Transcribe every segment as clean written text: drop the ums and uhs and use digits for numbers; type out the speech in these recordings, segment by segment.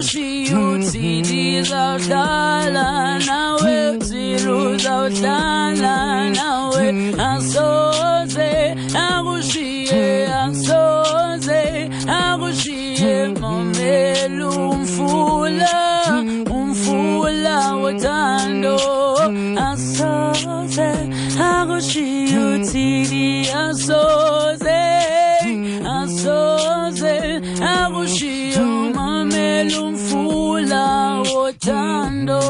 Uthi ndizawuhlala nawe, uzawuhlala nawe, asoze akushiye, asoze akushiye. Mamela umfula, umfula wothando, asoze akushiye, uthini, asoze, asoze akushiye. Mamela umfula wothando,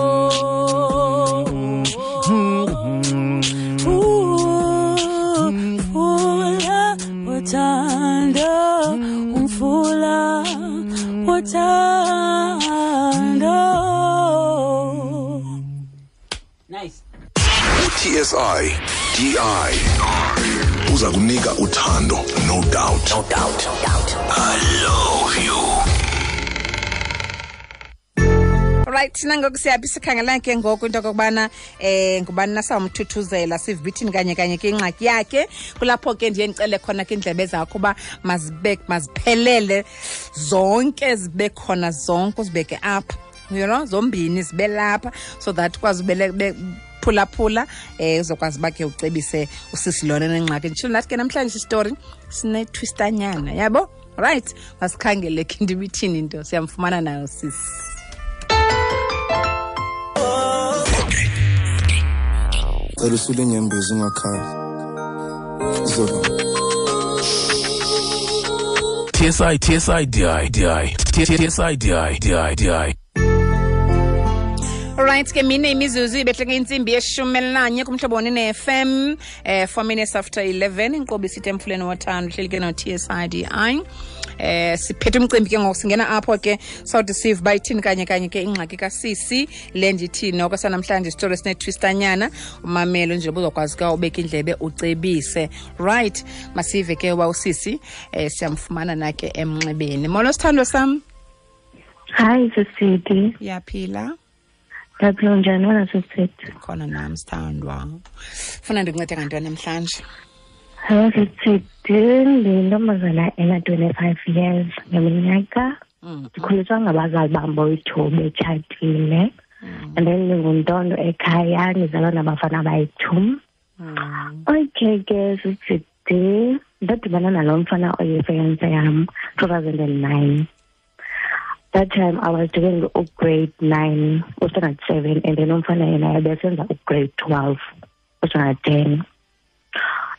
umfula wothando, umfula wothando. Nice. TSI DI uza kunika uthando, no doubt, no doubt, no doubt. I love you. Right, nangoku siyaphi? Sikhangela ke ngoku into okokubana ngubani nasawumthuthuzela, sivithini kanye kanye ke ingxaki yakhe. Kulapho ke ndiye ndicele khona ke iindlebe zakho uba mazibe maziphelele zonke, zibe khona zonke, uzibeke apha, zombini zibe lapha, so that ukwazi phulaphula, uzokwazi uba ke ucebise usisi lona nengxaki. Nditshilo nathi ke namhlanje isitori sinetwistanyana, yabo. Right, masikhangele ke into ibithini into, siyamfumana nayo sisi. Cela usule inyembezi, ungakhali. Zolo. TSI TSI DI DI TSI DI DI DI. Alright ke, mine imizuzu ibehleke intsimbi ye-11 kuMhlobo ne-FM, 4 minutes after 11. Inkqubo isithi Emfuleni Wothando, uhleli ke no-TSIDI. Siphethe umcimbi ke ngoku, singena apho ke sawuthi sive uba ithini kanye kanye ke ingxaki kasisi le. Ndithi noko sanamhlanje isitori esinetwistanyana, umamelo nje ubuzokwazi ke ubeka indlebe ucebise. Right, masive ke uba usisi siyamfumana na ke emnxebeni. Molo sithandwa sam. Hi sisidi. Uyaphila? Ndiyaphila, njani wena sisidi? Khona nam sithandwa. Funa ndikuncede ngantoni namhlanje? Hayi sisidi, ndiyintombazana ena-25 years ngeminyaka. Ndikhuliswa ngabazali bam boyi-2 betshatile. And then ndinguntondo ekhaya, ndizalwa nabafana abayi-2. Okay ke sisidi, ndadibana nalo mfana oyifiance yam 2009. That time I was doing grade 9, standard 7, and then umfana yena ebesenza grade 12, standard 10.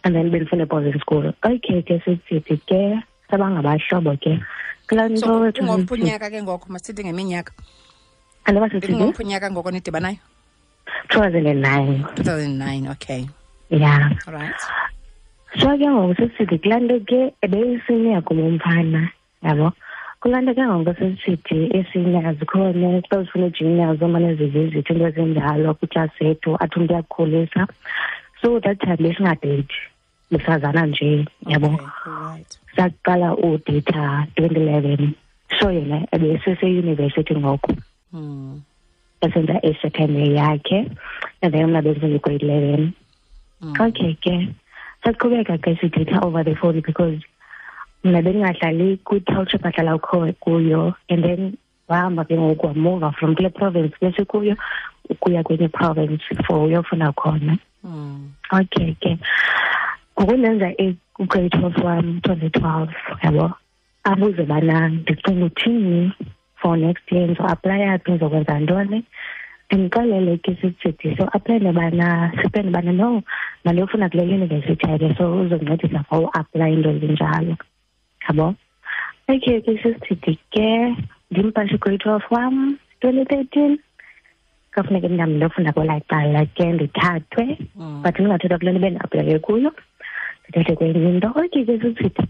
And then bendifunda boarding school. Okay ke sisithi ke sabangabahlobo ke. Kulaa nto. So kungophi unyaka ke ngoku? Masithi ngeminyaka. Andiba sisithi? Kungophi unyaka ngoko nidibanayo? 2009. 2009, okay. Yeah. All right. So ke ngoku sisithi kulaa nto ke ebeyisenior kum umfana, yabo. Kulaa nto ke ngoku sisithi ii-seniors zikhona, xa zifuna ii-juniors zomane zivizithi into ezinjalo kwiklasi yethu, athi umntu uyakukhulisa. So that time besingadeyithi, besazana nje, yabo. Okay, right. Saqala udeyitha 2011. So yena ebeseseyunivesithi ngoku. Esenza i-second year yakhe, and then mna bendisenza i-grade 11. Okay ke, saqhubeka ke sideyitha over the phone because mna bendingahlali kwi-township ahlala kuyo, and then wahamba ke ngoku wamuva from kule province besikuyo ukuya kwenye province for uyofuna khona. Okay ke, ngoku ndenza i-grade 12 wam 2012, yabo. Abuze bana ndicinga uthini for next year, ndizo-aplaya phi, ndizokwenza ntoni. Ndimxelele ke sisithi so aplaya bana sipende bana no mandiyofuna kule university yakhe, so uzoncedisa for uaplaya into ezinjalo, yabo. Okay ke sisithi ke ndimpashe grade 12 wam 2013. Kafuneke mna ndiyofunda kwelaa cala ke ndithathwe, but ndingathathwa kule nto bendiaplaye kuyo, ndithathwe kwenye into. Okay ke sisithi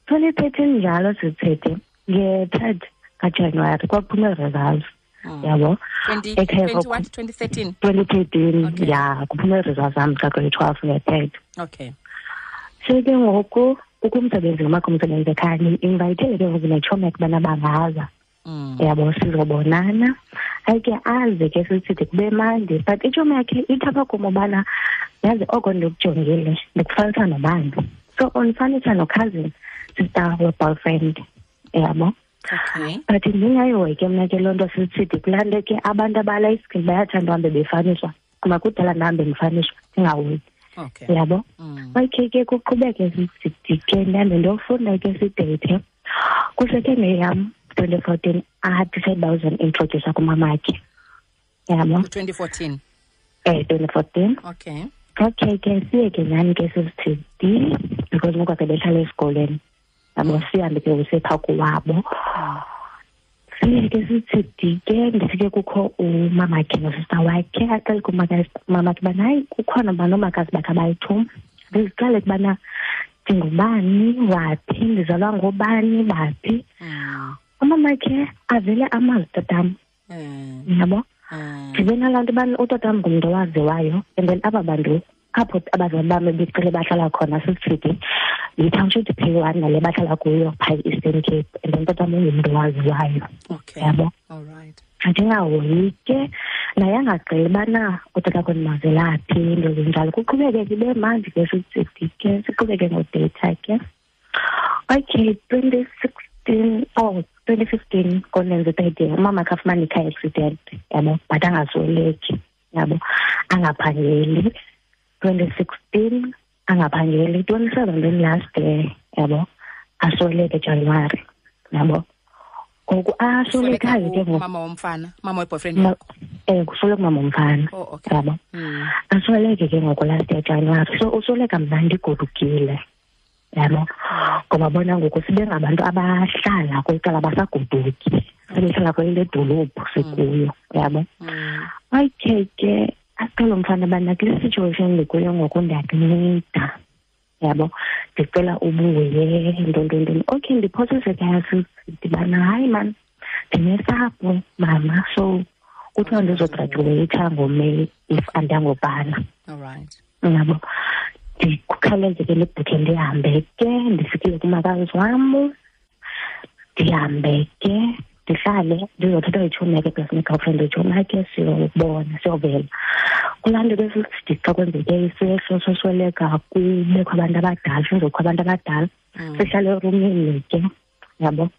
2013 njalo sisithi nge-3rd kaJanuwari kwakuphuma ii-results, yabo. 2013? 2013. Okay. Ya, kuphuma ii-results zam ka-grade 12 nge-3rd. Okay. So ke ngoku kukho umsebenzi ngomakho umsebenzi ekhaya, ndi-invayithele ke ngoku netshomi yakhe ubana bangaza. Yabo, sizobonana. Hayi ke aze ke sisithi kube mandi, but itshomi yakhe ithi apha kum ubana yazi oko ndikujongile ndikufanisa nobani. So undifanisa no-cousin sister we-boyfriend, yabo. Okay. But ndingayihoyi ke mna ke loo nto sisithi kulaa nto ke abantu abala iskin bayathanda uhambe befaniswa, kuba kudala ndihambe ndifaniswa ndingahoyi. Okay. Yabo. Okay ke kuqhubeke sisithi ke ndihambe ndiyofunda ke sideyithe. Kuseke ngeyam 2014 adicide uba uzondiintrodyusa kumamakhe. Yabo. 2014. 2014. Okay. Okay ke siye ke nyhani ke sisithi because ngoku ake behlala esikolweni. Yabo, sihambe ke usepha kowabo. Siye ke sithi ke ndifike kukho umamakhe nosista wakhe, aqale kumamakhe ubana hayi kukhona uba noomakazi bakhe abayi-2. Ndiziqale kubana ndingubani, waphi, ndizalwa ngobani, baphi. Umamakhe avele amazi tatam. Yabo? Ndibe nalaa nto ubana utatam ngumntu owaziwayo, and then aba bantu apho abazali bam becele bahlala khona sisithi yi-township P1 nale bahlala kuyo phaa e-Eastern Cape, and then tatam ungumntu owaziwayo. Okay. Yabo? All right. Ndingahoyi ke naye angagqili ubana utata wakhe ndimazela phi, into ezinjalo. Kuqhubeke ke ibe mandi ke sisithi ke siqhubeke ngodeyitha ke. Okay, 2016, oh, 2015 konenze third year, umama akhe afumane i-car accident, yabo, but angasweleki, yabo, angaphangeli. 2016 angaphangeli, 2017 last year, yabo, asweleke January, yabo. Ngoku aswelekayo ke ngoku. Mama womfana, mama we-boyfriend yakho. Kusweleka umama womfana. Oh, okay. Yabo. Asweleke ke ngoku last year January. So usweleka mna ndigodukile. Yabo. Ngoba bona ngoku sibe ngabantu abahlala kwicala basagoduki. Sebehlala kwele dolophu sikuyo, yabo. Okay ke aqala umfana bana kule situation ndikuyo ngoku ndiyakunceda. Yabo, ndicela ubuye nto. Okay, ndiphosise ekhaya sidibana, hayi man, ndinesapho mama, so kuthiwa ndizograduate ngoMeyi if andangobhala. All right. Yabo, ndikhawuleze ke ndibhukhe ndihambe ke, ndifikile kumakazi wam, ndihambe ke, ndihlale, ndizothatha itshomi yakhe plus ne-girlfriend itshomi yakhe, siyobona, siyovela. Kulaa nto ke sithi xa kwenzeke isehlo sosweleka kubekho abantu abadala, sizokho abantu abadala, sihlale erumini ke, yabo.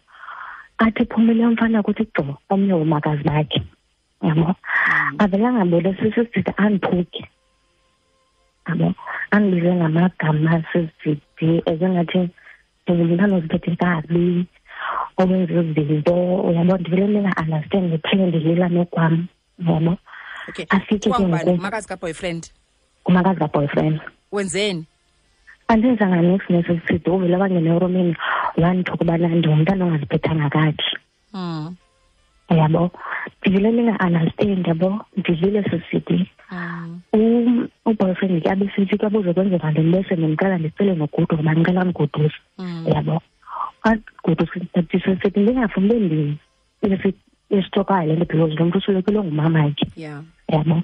Athi phumile umfana kuthi gqo omnye womakazi bakhe, yabo. Avele angaboni sisithi andiphuke, yabo. Andibize ngamagama sisithi ezengathi ndingumntana oziphethe kabi, owenza izinto, uyabo, ndivele ndinga-understand, ndiphele ndilila nokwam, yabo. Okay. Afike ke Kuthiwa ngubani? ngoku. Ngumakazi ka-boyfriend? Ngumakazi ka-boyfriend. Wenzeni? Andenzanga niks nesisithi, uvele wangena erumini wandithuka ubana ndingumntana ongaziphethanga kakuhle. Yabo. Ndivele ndinga-understand, yabo, ndilile sisithi. Uboyfriend ke abe sithi ke abuze kwenzeka ntoni, bese ndimcela ndicele nogoduka ngoba ndicela andigoduse. Yabo. Andigoduse, ndisithi ndingafuni ube esitokayo le nto because lo mntu uswelekelwe ngumamakhe. Yabo.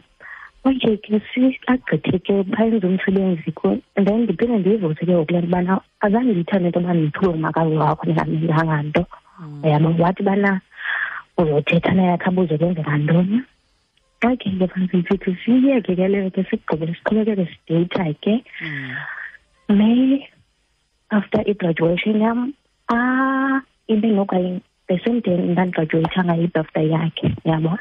Okay ke agqithe ke bayenze umsebenzi ke, and then ndiphinde ndiyivuse ke ngoku le nto ubana azange ndiyithande into yoba ndithuke ngumakazi wakho ndingamenzanga nto. Yabo, wathi bana uzothetha naye akhe abuze kwenzeka ntoni. Okay ke fanele sithi siyeke ke leyo ke sigqibele siqhubekeke sideyitha ke. May after i-graduation yam, ibe nokanye the same day ndandigraduate ngayo i-birthday yakhe, yabo.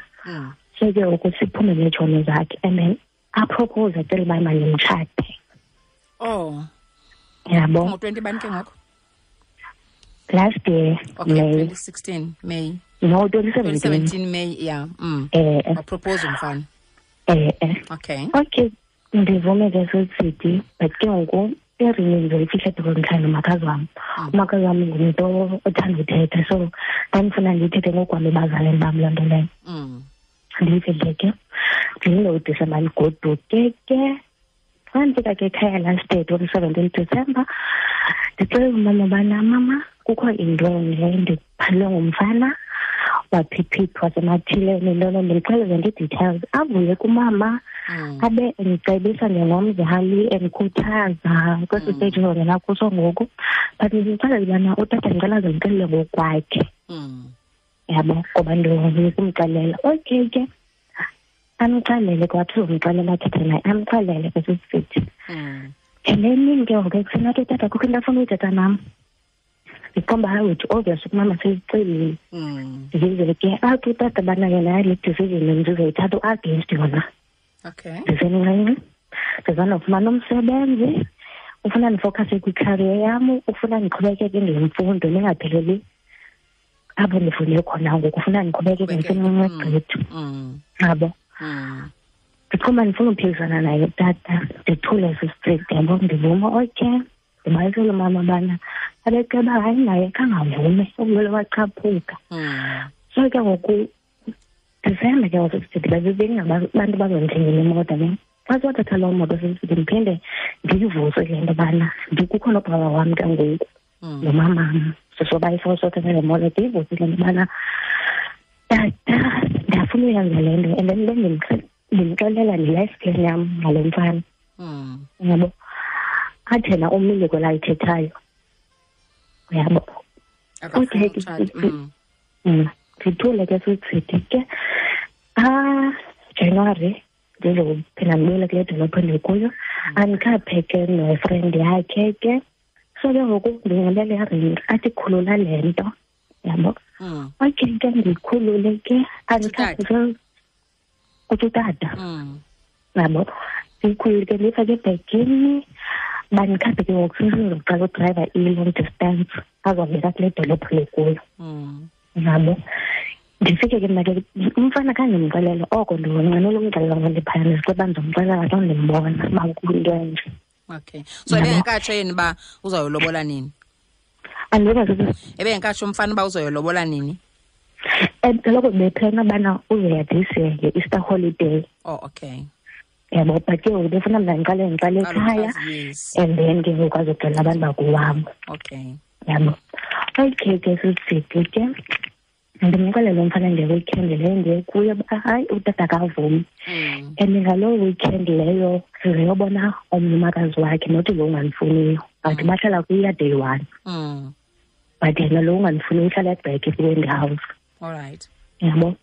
So ke ngoku siphume neetshomi zakhe and then apropose acele uba mandimtshate. Oh. Yabo. Ngo-twenty bani ke ngoku? Last year, Okay, May. 2016 May. No, 2017. 2017 May, yeah. Wapropose umfana. Okay. Okay, ndivume ke sisithi, but ke ngoku iringi ndizoyifihla because ndihlala nomakazi wam. Umakazi wam ngumntu othanda uthetha, so ndandifuna ndiyithethe ngokwam ebazalini bam loo nto leyo. Ndiyifihle ke, ndilinde uDisemba ndigoduke ke. Xa ndifika ke ekhaya last year, 2017 December, ndicela umama ubana, mama, kukho into enje, ndiphalwe ngumfana waphiphithi wasemathileni, nto loo nto, ndixelele nje ii-details. Avuye kumama, abe endicebisa njengomzali, endikhuthaza kwesi stage ndizongena kuso ngoku. But ndimxelele ubana utata ndicela aze ndixelele ngokwakhe. Yabo, ngoba ndikumxelela. Okay ke, amxelele ke, wathi uzomxelela athethe naye, amxelele ke sisithi. And then ke ngoku ekuseni athi utata kukho into afuna uyithetha nam. Ndiqomba hayi wethu obvious umama seyicelile. Ndize ke athi utata bana yena le decision ndizoyithatha u-against yona. Okay. Ndisemncinci, ndizanofumana umsebenzi, ufuna ndifocuse kwi-career yam, ufuna ndiqhubekeke ngemfundo ndingapheleli apho ndifunde khona ngoku, ufuna ndiqhubekeke ndisemncinci gqithi. Yabo. Ndiqomba ndifuna uphikisana naye tata, ndithule sisitriti, yabo, ndivuma okay. Ndibalisele umama bana abeceba hayi naye khangavume, ubulwele wachaphuka. So ke ngoku Disemba ke ngoku sithi bengabantu bazondithengela imoto ne. Xa siwathatha loo moto sisithi ndiphinde ndiyivuse le nto bana kukho nobaba wam ke ngoku nomamam sisobayifo sothatha le moto, ndiyivuse le nto bana tata ndiyafuna uyenza le nto, and then bendimxelela ne-life plan yam ngalo mfana. Yabo, athi yena umile kwelayithethayo. Yabo. Okay. Ndithule ke sisithi ke January ndizophinda ndibuyele kule dolophu endikuyo, andikhaphe ke nefriend yakhe ke. So ke ngoku ndinxibe le ring, athi khulula le nto, yabo. Okay ke ndiyikhulule ke, andikhaphe ke kuthi utata. Yabo, ndiyikhulule ke ndiyifake ebhegini, bandikhaphe ke ngoku sesizoqala udrayiva i-long distance azobeka kule dolophu lekuyo. Yabo. Ndifike ke mna ke umfana khange ndimxelele oko, ndinqwenela umxelela ngoba ndiphaya ndiziceba ndizomxelela xa ndimbona uba kuyinto enje. Okay. So ebengekatsho yena uba uzawulobola nini? Andikazi. Ebengekatsho umfana uba uzoyolobola nini? Kaloku bephena ubana uzoya this year nge-Easter holiday. Oh, okay. Yabo, but ke ngoku befuna mna ndiqale ekhaya, and then ke ngoku azoxelela abantu bakowabo. Okay. Yabo. Okay ke sisithi ke ndimxelele umfana nge-weekend leyo ndiye kuyo uba hayi utata akavumi. And ngaloo weekend leyo sizeyobona omnye umakazi wakhe, not lo ungandifuniyo, but bahlala kwiya day one. But yena lo ungandifuniyo uhlala ebheke kwi-Wendy House. All right. Yabo.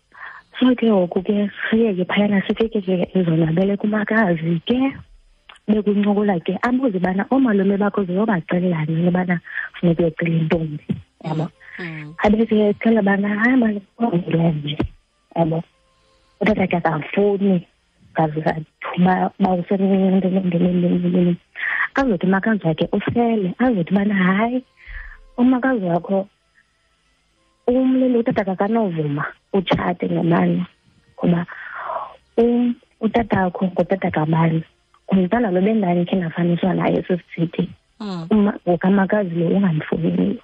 So ke ngoku ke siye ke phayana sifike ke ezonwabele kumakazi ke, bekuncokola ke abuze bana oomalume bakho ziyobaxelela nini ubana funeka uyocela intombi. Yabo. Abe siyacela bana hayi mani nje. Yabo. Utata ke akafuni ngaze bawusemncinci azothi umakazi wakhe usele, azothi bana hayi umakazi wakho umlilo utata akanovuma utshate ngamani ngoba utata wakho ngutata kabani, ngumntana lo bendani khe ndafaniswa naye sisithi ngokamakazi lo ungamfuniyo.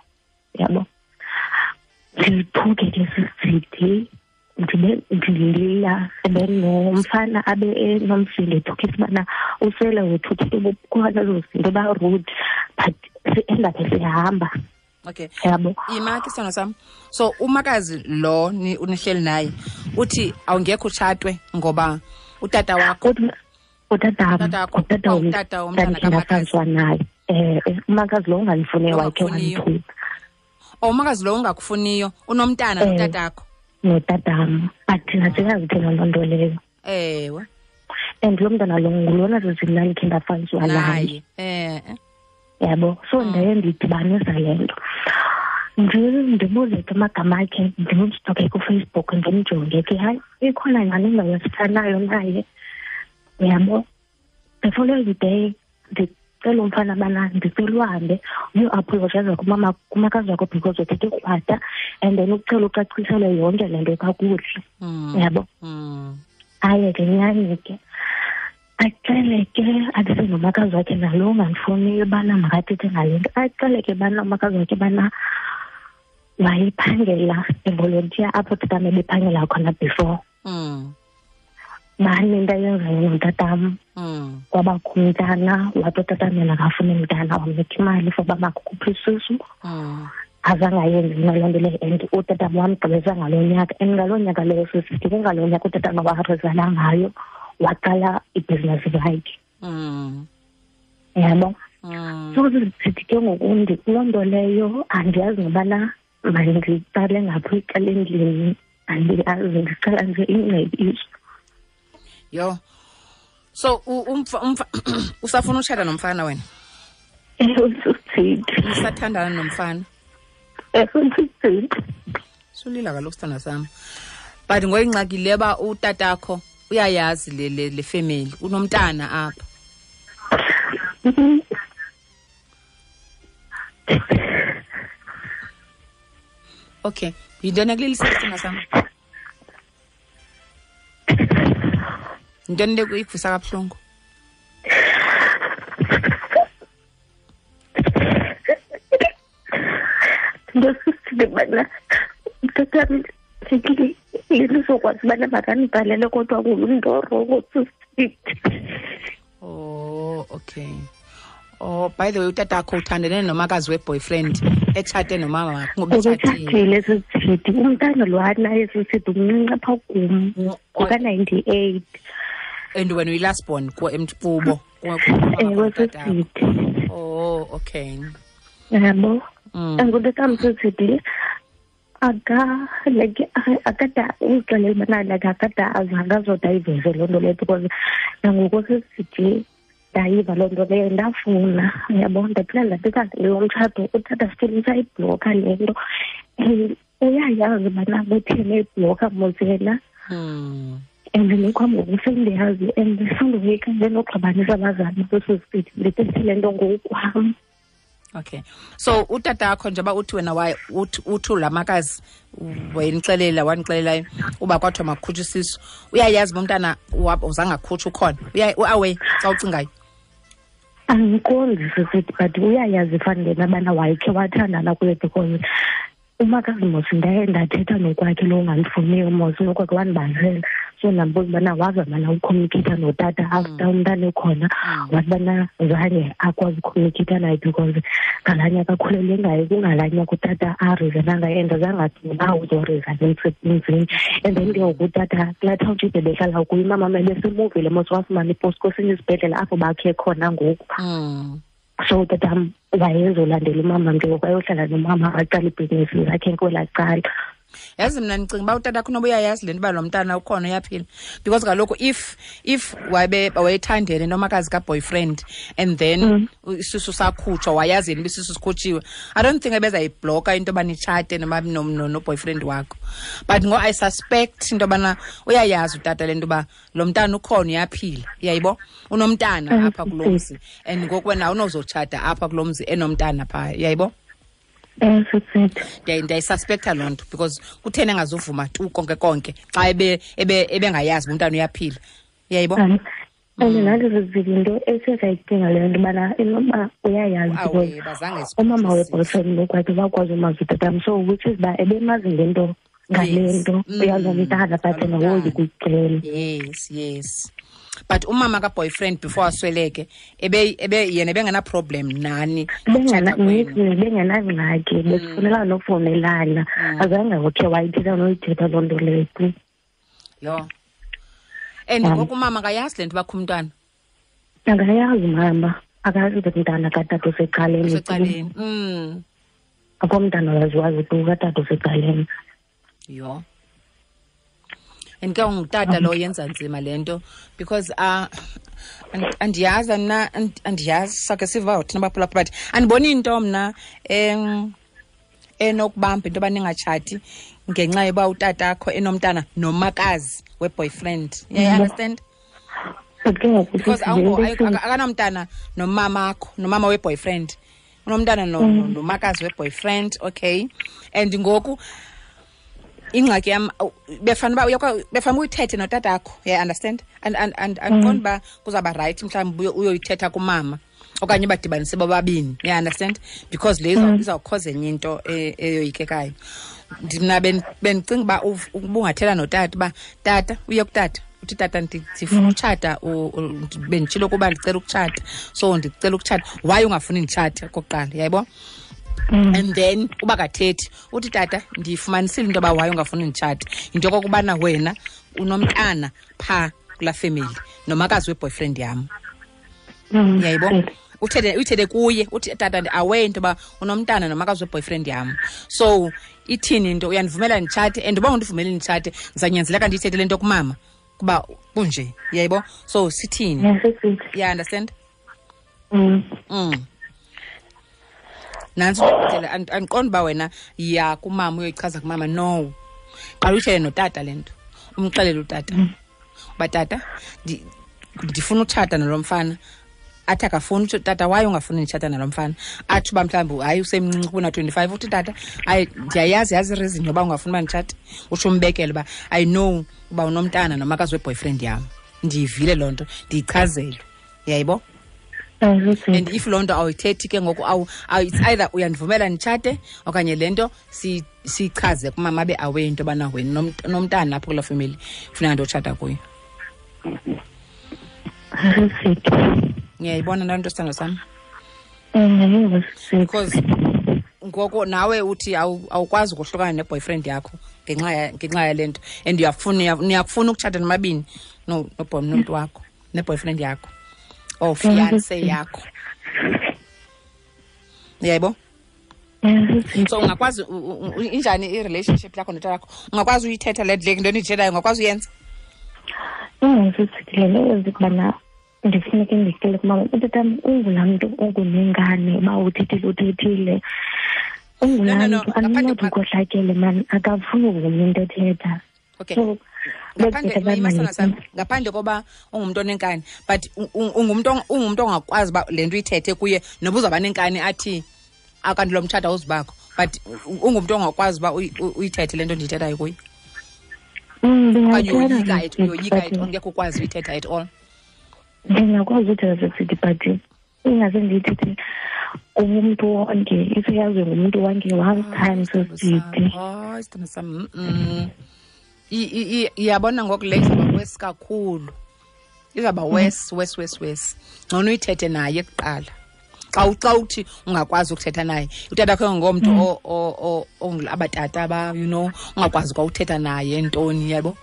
Yabo. Ndithuke ke sisithi ndibe ndilila, and then nomfana abe enomsindo ethukisa ubana usele wethuthile bukhona ezo zinto ba-rude, but si-end-aphe sihamba. Okay. Yabo. Ima ke sithando sam. So umakazi lo unihleli naye uthi awungekho utshatwe ngoba utata wakho utata utata utata womntana kamakazi naye. Umakazi lo ungandifuniyo wakhe wandithuka. Oh, umakazi lo ungakufuniyo unomntana notatakho. Notatam, but thina siyazi thina loo nto leyo. Ewe. And lo mntana lo ngulona zizimnandi khe ndafaniswa naye. Yabo. So ndaye ndidibanisa le nto. Ndibuze ke amagama akhe, ndimstoke kuFacebook, ndimjonge ke hayi ikhona nyhani indawo esifanayo naye. Yabo. The following day ndicela umfana bana ndicela uhambe uyoapologize kumama kumakazi wakho because uthethe krwada, and then ucela ucacisele yonke le nto kakuhle. Yabo. Aye ke nyhani ke acele ke athethe nomakazi wakhe nalo ungandifuniyo ubana makathethe ngale nto, acele ke bana umakazi wakhe bana wayephangela evolontiya apho tatam ebephangela khona before. Bani into ayenzayo notatam, kwabakho umntana, wathi utatam yena akafuni mntana, wamnika imali for uba makukhuphe isisu. Azange ayenze mna loo nto leyo, and utatam wamgqibeza ngaloo nyaka, and ngaloo nyaka leyo sisithi kungaloo nyaka utatam warizana ngayo, waqala ibhizinesi yakhe. Yabo. So sithi ke ngoku kuloo nto leyo andiyazi ngobana mandiqale ngaphi icala endlini, andiyazi, ndicela nje ingcebiso. Yo. So usafuna utshata nomfana wena? Usithethe. Usathandana nomfana? Sisithi. Sulila kaloku sithanda sam. But ngoyingxaki le ba utatakho uyayazi le family, unomntana apha. Okay, yintoni ekulilisa sithanda sam? Yintoni le ikuvusa kabuhlungu? Ndosisibana mtatam ndizokwazi ubana makandibhalele kodwa ngumntu sisithi. Oh, okay. Oh, by the way, utatakho uthandene nomakazi we-boyfriend etshate nomama wakho ngoba etshatile sisithi. Umntana lo anaye sisithi umncinci apha kum ngoka-98. And wena uyi-last born kubo? Ewe sisithi. Oh, okay. Yabo. Angutatam sisithi aka like akada uxelela ubana like akada azange azoda ayiveze loo nto leyo because nangoku sisithi ndayiva loo nto leyo ndafuna, uyabo, ndaphila ndathetha lo mtshato utata still usayibhlokha le nto and uyayazi ubana kutheni eyibhlokha mos yena. And nokwam ngoku sendiyazi and sandoyika ndenoxabanisa abazali besosithi ndithethe le nto ngokwam. Okay. So utatakho njengoba uthi wena uthi la makazi wayenixelela wanixelelayo uba kwathiwa makukhutshwe isisu, uyayazi uba umntana uzange akhutshwe ukhona? Uawe xa ucingayo? Andiqondi sisithi, but uyayazi fanele abana wayekhe wathandana kuye because umakazi mos ndaye ndathetha nokwakhe lo ungandifuniyo mos nokwakhe wandibalisela. So ndambuza ubana wazama ucommunicate notata after umntana ekhona, wathi bana zange akwazi ucommunicate naye because ngalaa nyaka akhulelwe ngayo kungalaa nyaka utata arizana ngayo and zange athi uba uzorizana emsebenzini. And then ke ngoku utata kulaa township ebehlala kuyo umama ebesemuvile mos wafumana ipost kwesinye isibhedlele apho bakhe khona ngoku. So tatam wayezolandela umama ke ngoku ayohlala nomama aqala ibhizinisi zakhe kwelaa cala. Yazi mna ndicinga uba utatakho unoba uyayazi le nto uba lo mntana ukhona uyaphila because kaloku if wayethandene nomakazi ka-boyfriend and then isisu sakhutshwa wayazi yena uba isisu sikhutshiwe, I don't think ebezayibhloka into yoba nitshate noboyfriend wakho. But ngo I suspect into yobana uyayazi utata le nto uba lo mntana ukhona uyaphila, uyayibo, unomntana apha kulo mzi and ngoku wena awunozotshata apha kulo mzi enomntana phaa, uyayibo. Ndiyayisuspektha loo nto because kutheni engazuvuma tu konke konke xa ebengayazi uba umntana uyaphila, uyayibo. And nathi zizinto esizayicinga leyo nto ubana inoba uyayazi because umama we-boyfriend ngokwakhe wakwazi umazi utatam, so which is uba ebemazi ngento ngale nto uyazomntana but yena woyika ukucela. Yes, yes. But umama ka-boyfriend before asweleke ebe yena ebengena-problem nani? Bengenangxaki, besifunelana nokuvumelana, azange ukhe wayithetha noyithetha loo nto leyo. Yho. And ngoku umama akayazi le nto bakho umntwana? Akayazi mama, akayazi umntana katata usecaleni. Usecaleni. Akho mntana waziwazi tu katata usecaleni. Yho. And ke ngutata lo yenza nzima le nto because andiyazi mna, andiyazi sakhe siva thina baphulaphula but andiboni into mna enokubamba into yoba ningatshati ngenxa yoba utatakho enomntana nomakazi we-boyfriend. You understand? Because akanamntana nomamakho, nomama we-boyfriend, unomntana nomakazi we-boyfriend, okay. And ngoku ingxaki yam befana uba befana uyithethe notatakho, yeah, understand? And andiqondi uba kuzawuba right mhlawumbi uyoyithetha kumama okanye badibanise bobabini, yeah, understand? Because le izawukhoza enye into eyoyikekayo. Mna bendicinga uba ubungathela notata uba tata, uye kutata uthi tata ndifuna utshata, benditshilo ukuba ndicela ukutshata, so ndicela ukutshata, why ungafuni nditshate okokuqala, yayibo? And then uba kathethi uthi tata ndiyifumanisile into yoba why ungafuni nditshate, yinto yokokubana wena unomntana phaa kulaa family nomakazi we-boyfriend yam, yayibo? Uthethe kuye uthi tata ndi-aware into yoba unomntana nomakazi we-boyfriend yam, so ithini into, uyandivumela nditshate? And uba undivumeli nditshate ndizawunyanzeleka ndiyithethe le nto kumama kuba kunje, yayibo? So sithini? Yeah, understand? Nantsi indlela, andiqondi uba wena yiya kumama uyoyichaza kumama. No, qala uyitshele notata le nto, umxelele utata uba tata ndifuna utshata nalo mfana. Athi akafuni, utsho tata, waye ungafuni nditshata nalo mfana? Athi uba mhlawumbi hayi usemncinci kuna-25. Uthi tata, hayi ndiyayazi, yazi ireason yoba ungafuni uba nditshate. Utsho umbekele uba I know uba unomntana nomakazi weboyfriend yam, ndiyivile loo nto, ndiyichazelwe, yayibo? And if loo nto awuyithethi ke ngoku, it's either uyandivumela nditshate okanye le nto siyichaze kumama abe aware into yobana wena nomntana apho kuloo family funeka ndotshata kuyo. Ngiyayibona loo nto, sithando sam? Because ngoku nawe uthi awukwazi ukohlukana ne-boyfriend yakho ngenxa yale nto, and niyakufuna ukutshata nomabini nomntu wakho ne-boyfriend yakho or fiance yakho, uyayibo? So ungakwazi injani i-relationship yakho notata wakho? Ungakwazi uyithetha le nto ndiyithethayo? Ungakwazi uyenza? Ingasisikelele ukubana ndifuneke ndicele kumama. Utatam ungulaa mntu ongunengane, uba uthethile uthethile, ungulaa mntu andinothi ukhohlakele mani, akafuni uvuma into ethetha. Okay, so ngaphandle koba ungumntu onenkani, but ungumntu ongakwazi uba le nto uyithethe kuye noba uzawuba nenkani athi akanti lo mtshato awuzubakho, but ungumntu ongakwazi uba uyithethe le nto ndiyithethayo kuye? Okanye uyoyika at all, ngekho ukwazi uyithetha at all? Ndingakwazi uthetha sisithi, but ingase ndiyithethe kumntu wonke, iseyaziwe ngumntu wonke one time sisithi. Hayi, sithando sam, iyabona ngoku le izawuba wesi kakhulu, izawuba wesi wesi wesi wesi. Ngcono uyithethe naye kuqala. Xa uthi ungakwazi ukuthetha naye, utata kho ngomntu abatata ba, you know, ungakwazi kwa uthetha naye ntoni, yabo?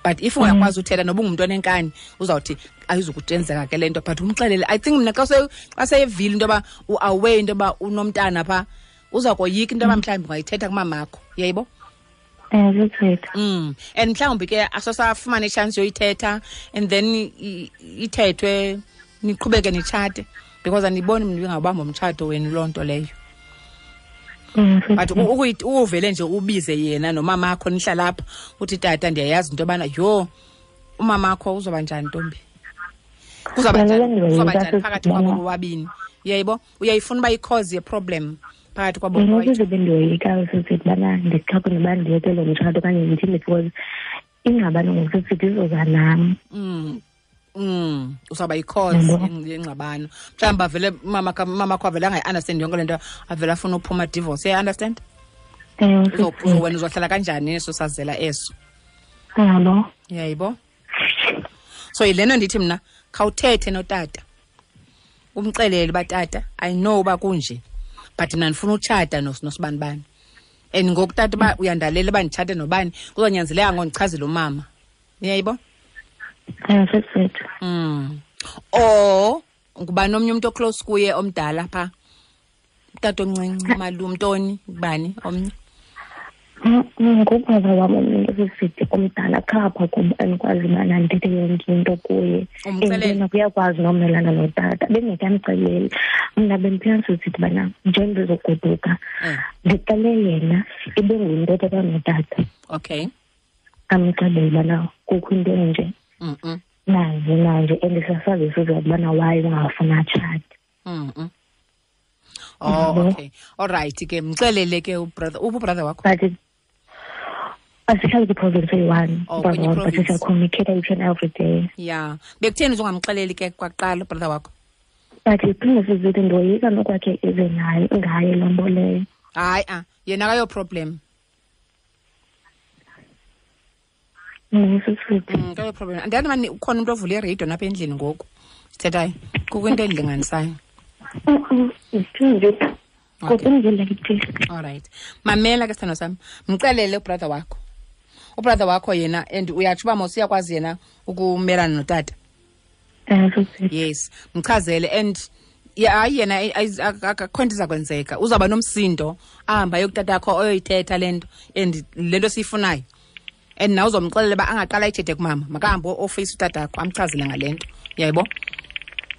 But if ungakwazi uthetha noba ungumntu onenkani, uzawuthi ayizukutenzeka ke le nto, but umxelele. I think mna xa seyevile into yoba u-aware into yoba unomntana phaa, uza koyika into yoba mhlawumbi ungayithetha kumamakho, uyayibo? And mhlawumbi ke asosafumana itshansi yoyithetha, and then ithethwe niqhubeke nitshate, because andiboni mntu ingawubamba umtshato wenu loo nto leyo. But uvele nje ubize yena nomamakho nihlala apha, uthi tata ndiyayazi into yobana yho umamakho uzoba njani ntombi, kuzawuba njani phakathi kwabo bobabini, uyayibo? Uyayifuna uba i-cause ye-problem phakathi kwabo? Ukuze bendiyoyika sisithi ubana ndixhaphe noba ndiyeke lo mtshato okanye ndithini, because ingxabano ngokusisithi izoza nam. Uzawuba yi-cause yengxabano. Mhlawumbi avele mamakho avele angayi-understand yonke le nto, avele afuna uphuma divorce, uyayi-understand? Wena uzohlala kanjani eso sazela eso? Yabo. Uyayibo? So yilena ndithi mna khawuthethe notata, umxelele uba tata I know uba kunje, but mna ndifuna utshata nosibanibani, and ngoku tata uba uyandalela uba nditshate nobani, kuzonyanzeleka ngondichazele umama, uyayibo? Or ngubani omnye umntu oclose kuye omdala phaa, utata omncinci, umalume, ntoni, ngubani omnye? Ngubaba wam omnye sisithi omdala khapha kum, andikwazi ubana ndithethe yonke into kuye. And uyakwazi nomelana notata, bengekamxeleli. Mna bendiphila sisithi ubana nje ndizogoduka ndicele yena ibe ngumntu othetha notata. Okay. Amxelele ubana kukho into enje nanje nanje, and siyasazi sizathu ubana why ungafuni atshate. Oh, okay. All right ke, mxelele ke ubrother, uphi ubrother wakho? But asihlali kwi-province eyi-one, but siyacommunicate each and every day. Yeah. Bekutheni uzongamxeleli ke kwaqala ubrother wakho? But iphinde sizithi ndoyika nokwakhe ize naye ngaye loo nto leyo. Hayi, yena akayo problem. Akayo problem. Andiyazi mani ukhona umntu ovule iradio napha endlini ngoku sithethayo, kukho into endilinganisayo. All right. Mamela ke sithando sami, mxelele ubrother wakho. Ubrother wakho yena, and uyatsho uba mos uyakwazi yena ukumelana notata. Yes, mchazele, and hayi yena akho nto iza kwenzeka, uzawuba nomsindo ahamba ayokutata yakho oyoyithetha le nto, and le nto siyifunayo. And nawe uzomxelela uba angaqala ayithethe kumama, makahambe ofeyisa utata yakho amchazele ngale nto, uyayibo?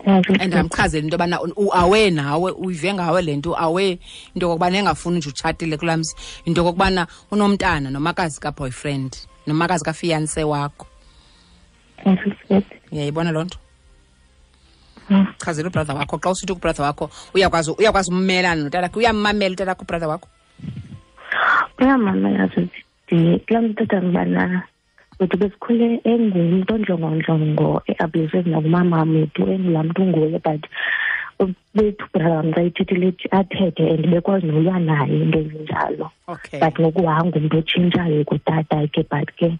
And amchazele into yobana uawe nawe, uyive ngawe le nto, uawe into yokokubana engafuni nje utshatile kulaa mzi, into yokokubana unomntana nomakazi kaboyfriend, nomakazi kafiance wakho. Uyayibona loo nto? Chazela ubrother wakho. Xa usithi kubrother wakho uyakwazi ummelana notatakhe, uyammamela utatakho ubrother wakho? Uyamamela sisi. Kulaa mntu tata ngibana wethu besikhule engumntu ondlongondlongo, e-abusive nakumama wethu, engulaa mntu unguye, but bethu brother wam xa ithethile athethe and bekwazi nolwa naye into ezinjalo. But ngoku wangumntu otshintshayo kutata ke, but ke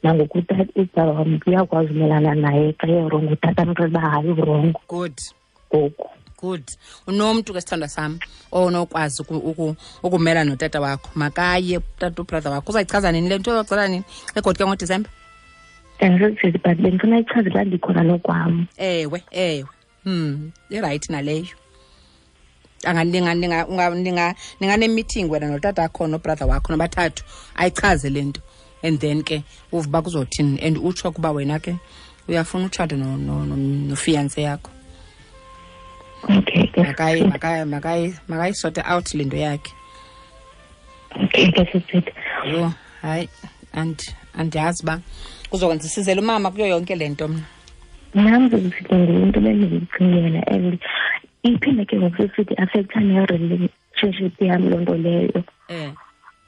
nangoku ubrother wam uyakwazi umelana naye xa erongo, utata amxelela uba hayi urongo. Good. Ngoku. Good. Unomntu ke sithandwa sam onokwazi ukumela notata wakho. Makaye tata ubrother wakho. Uzayichaza nini le nto? Uzayichaza nini? Egoduka ngoDisemba? Andizokuthi, but bendifuna ichaze xa ndikhona nokwam. Ewe, ewe. Irayithi naleyo. Ninganemeeting wena notata wakho nobrother wakho nobathathu, ayichaze le nto. And then ke uve uba kuzothini, and utsho ukuba wena ke uyafuna utshata nofiance yakho. Okay. Makayisorte out le nto yakhe. Okay, ke. Yho, hayi, andiyazi uba kuzokwenza isizele umama kuyo yonke le nto mna. Nam ndizisithi ngumntu bendiyicingela, and iphinde ke ngoku sisithi affecta ne-relationship yam loo nto leyo.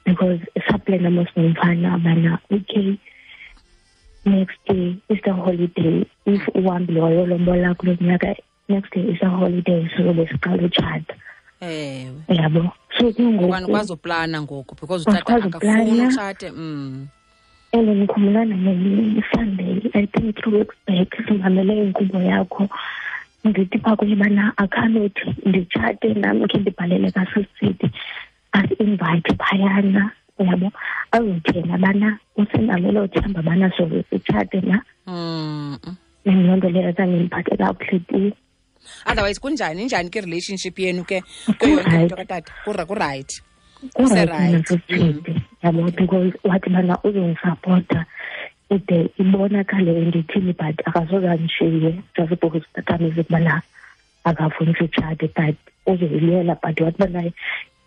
Because saplana mos nomfana bana, okay, next day is the holiday. If uhambile wayolombola kulo nyaka, next day is a holiday, so besiqala utshata. Ewe. Yabo. So ke ngoku Ukwazi uplana ngoku because utata akafuni utshate. And ndikhumbula nge-Sunday, I think 3 weeks back, simamele inkqubo yakho. Ndithi phaa kuye bana akhanothi nditshate nam khe ndibhalele kaSisidi asi-invite phayana, uyabo, azothena bana usenalo elo themba bana soze sitshate na. Loo nto leyo zange ndiphathe kakuhle tu. Otherwise kunjani, injani ke relationship yenu ke kuyo yonke into katata? Ku-right. Ku-right. Yabo, because wathi bana uzondisapota ide ibonakale ndithini, but akasoze andishiye just because tatam bana akafuni sitshate, but uzoyilwela, but wathi bana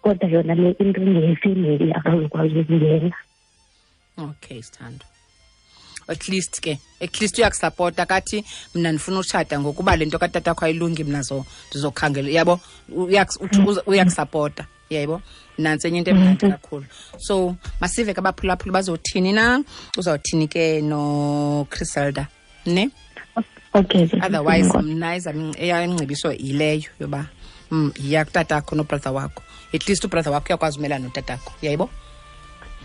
kodwa yona le into ngeyefemeli akazokwazi ukungena. Okay, sithando. At least ke, at least uyakusapota kathi mna ndifuna utshata ngokuba le nto katata wakho ayilungi, mna ndizokhangela, yabo, uyakusapota, yabo. Nantsi enye into emnandi kakhulu. So masive ke abaphulaphuli bazothini na, uzawuthini ke noChriselda, ne? Okay. Otherwise mna eyam ingcebiso yileyo yoba yiya kutatakho nobrother wakho. At least ubrother wakho uyakwazi umelana notatakho, uyayibo?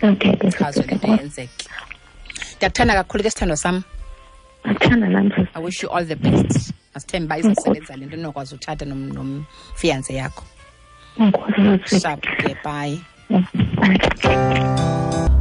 Okay. Chazo le nto yenzeke. Ndiyakuthanda kakhulu ke sithandwa sam. Athanda nam. I wish you all the best. Masithembe uba izasebenza le nto nokwazi utshata nomfiance yakho. Enkosi. Sharp ke, bye. Bye.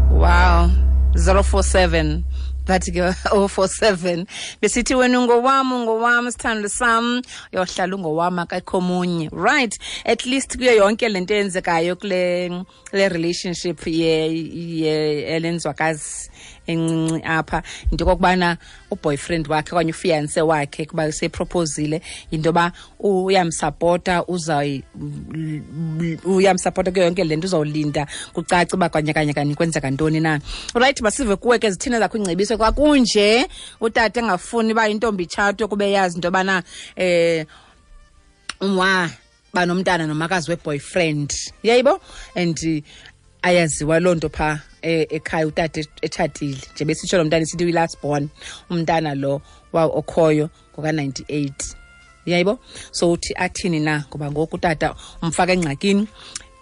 Wow. 047 bathi ke 047 besithi wena ungowam, ungowam sithando sam, uyohlala ungowam akekho omunye. Right, at least kuyo yonke lento eyenzekayo kule le relationship ye elenzwakazi encinci apha, into okokubana uboyfriend wakhe okanye ufiance wakhe kuba seproposile, into yoba uyamsapota, uyamsapota kuyo yonke le nto, uzawulinda kucace uba kanye kanye kanye kwenzeka ntoni na. Right, masive kuwe ke, zithini zakho ingcebiso xa kunje utata engafuni uba intombi itshatwe kube yazi into yobana umwa banomntana nomakazi we-boyfriend, yayibo, and ayaziwa loo nto phaa ekhaya, utata etshatile nje, besitsho lo mntana isithi uyi-last born, umntana lo okhoyo ngoka-98, yayibo. So uthi athini na, ngoba ngoku utata umfaka engxakini,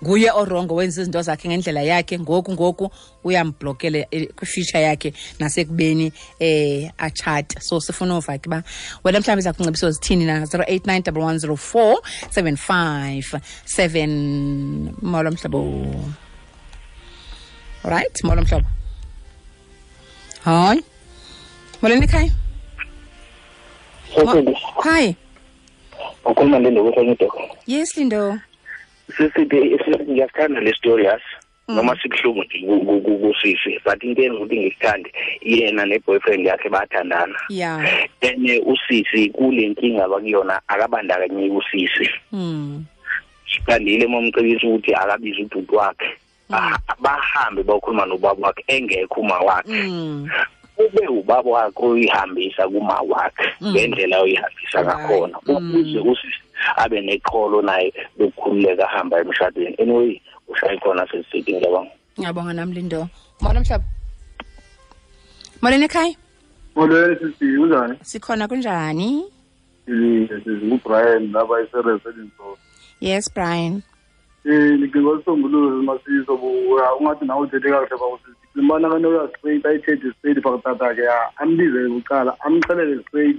nguye orongo, wenza izinto zakhe ngendlela yakhe, ngoku uyamblokele kwi-future yakhe nasekubeni atshate. So sifuna uva ke uba wena mhlawumbi zakho zithini na. 089 1104 757. Molo mhlobo. Right, molo mhlobo. Hayi, molweni ekhaya. Hi. Ukhuluma Lindo kusenyido. Yes, Lindo. Sisi, ngiyakuthanda le story, yazi. Noma sikuhlungu nje kusisi, but into enza ukuthi ngisithande, yena ne-boyfriend yakhe bayathandana. Then usisi kule nkinga bakuyona akabandakanyeki usisi. Sithandile momcebisa ukuthi akabize ubhuti wakhe, bahambe bayokhuluma nobaba wakhe engekho uma wakhe. Ube ubaba wakhe uyihambisa kuma wakhe ngendlela oyihambisa ngakhona, ukuze usisi abe neqholo naye lokukhululeka ahamba emshadweni. Anyway, ushaye khona sesithi, ngiyabonga. Ngiyabonga nami, Lindo. Molo mhlaba. Molweni ekhaya. Molweni sisi, kunjani? Sikhona, kunjani? Sisi, nguBrian lapha eSereselinso. Yes, Brian. Ndicinga isisombululo masiso ungathi nawe uthethe kakuhle bakusisi. Ndicinga ubana kanoya straight ayithethe straight phaa kutata ke, ambize bucala amxelele straight.